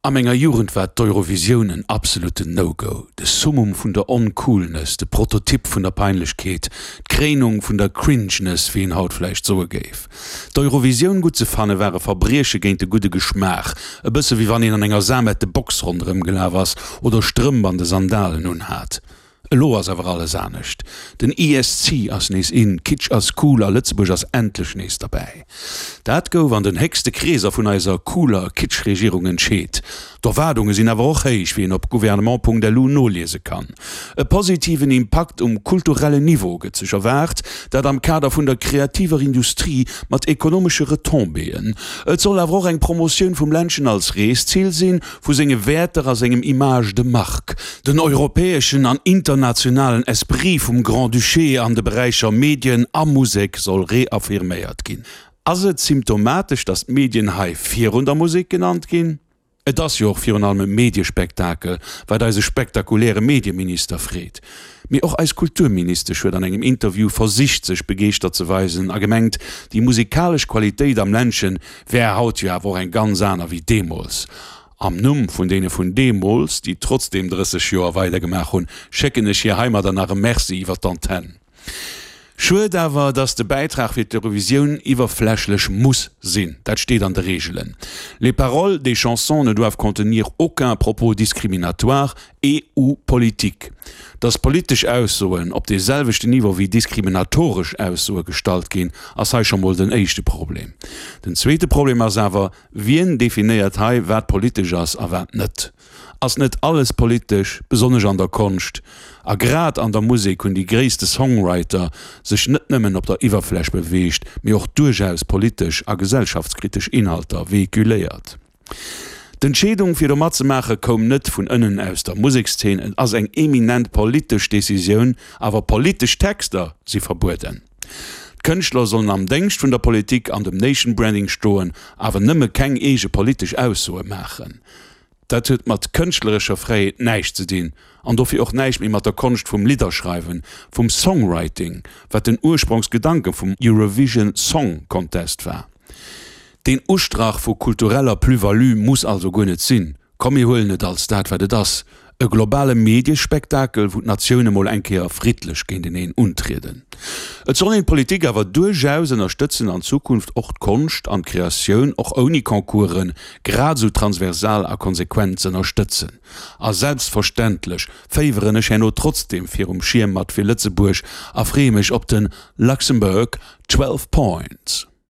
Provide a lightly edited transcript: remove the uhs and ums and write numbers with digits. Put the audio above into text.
A menger Jugend war d'Eurovisioun en absoluten No-Go, de Summum vun der Oncoolness, de Prototyp vun der Peinlechkeet, d'Kréinung vun der Cringeness, wéi een haut vläicht soe géif. D'Eurovisioun gutt ze fanne war e Verbrieche géint de gudde Geschmaach, e bësse wéi wann een an enger samette Box ronderëm gelaf ass oder Strëmp an de Sandalen unhat. Elo ass awer alles anescht. Den ESC ass nees in, Kitsch ass cool a Lëtzebuerg ass endlech nees derbäi. Dat gouf an den héchste Kreeser vun eiser cooler Kitsch-Regierung entscheet. D'Erwaardunge sinn awer och héich, wéi een op gouvernement.lu noliese kann. E positiven Impakt um kulturellen Niveau gëtt sech erwaart, dat am Kader vun der kreativer Industrie mat ekonomesche Retombéeën. Et soll awer och eng Promotioun vum Ländchen als Reeszil sinn, vu senge Wäerter a sengem Image de marque, den europäeschen an internationalen Esprit vum Grand-Duché an de Beräicher Medien a Musek soll reaffirméiert ginn. Ass et symptomatesch, datt d'Medien hei virun der Musek genannt ginn? Et ass jo och virun allem e Mediespektakel, wat eise spektakuläre Medieminister freet. Mee och eis Kulturministesch huet an engem Interview versicht sech begeeschtert ze weisen a gemengt, déi musikalesch Qualitéit am Ländchen wär haut jo awer och eng ganz aner wéi deemools. Am Numm vun deene vun deemools, déi trotzdeem 30 Joer weidergemaach hunn, schécken ech hir heimadder nach e Merci iwwer d'Antenn. Schued awer, dass de Bäitrag fir d'Eurovisioun iwwerflächlech muss sinn. Dat steet an de Reegelen. Les paroles des chansons ne doivent contenir aucun propos discriminatoire et ou politique. Dass politesch Aussoen op dee selwechten Niveau wéi diskriminatoresch Aussoe gestallt ginn, ass hei scho mol den éischte Problem. Den zweete Problem ass awer, Wien definéiert hei, wat politesch ass a wat net? Ass net alles politesch, besonnesch an der Konscht? A grad an der Musek hunn déi gréisste Songwriter sech net nëmmen op der Iwwerfläch beweegt, mee och duerchaus politesch a gesellschaftskritesch Inhalter vehiculéiert. D'Entscheedung fir do matzemaache koum net vun ënnen aus der Musekszeen, et ass eng eminent politesch Decisioun, awer politesch Texter si verbueden. D'Kënschtler sollen am Déngscht vun der Politik an dem Nation Branding stoen, awer nëmme keng eege politesch Aussoe maachen. Dat huet mat kënschtlerescher Fräiheet näischt ze dinn an dofir och näischt méi mat der Konscht vum Lidderschreiwen, vum Songwriting, wat den Ursprongsgedanke vum Eurovision Song Contest war. Deen Ustrach vu kultureller Plus-value muss also guer net sinn. Komm mir huelen et als dat wat et ass, e globale Mediespektakel, wou d'Natioune mol eng Kéier friddlech géinteneen untrieden. Et soll een d'Politik awer duerchaus ënnerstëtzen an Zukunft och d'Konscht an d'Kreatioun, och ouni Concoursen, grad esou transversal a konsequent z'ënnerstëtzen. A selbstverständlech féiweren ech herno trotzdem virum Schierm mat fir Lëtzebuerg a freeë mech op den Luxembourg 12 Points.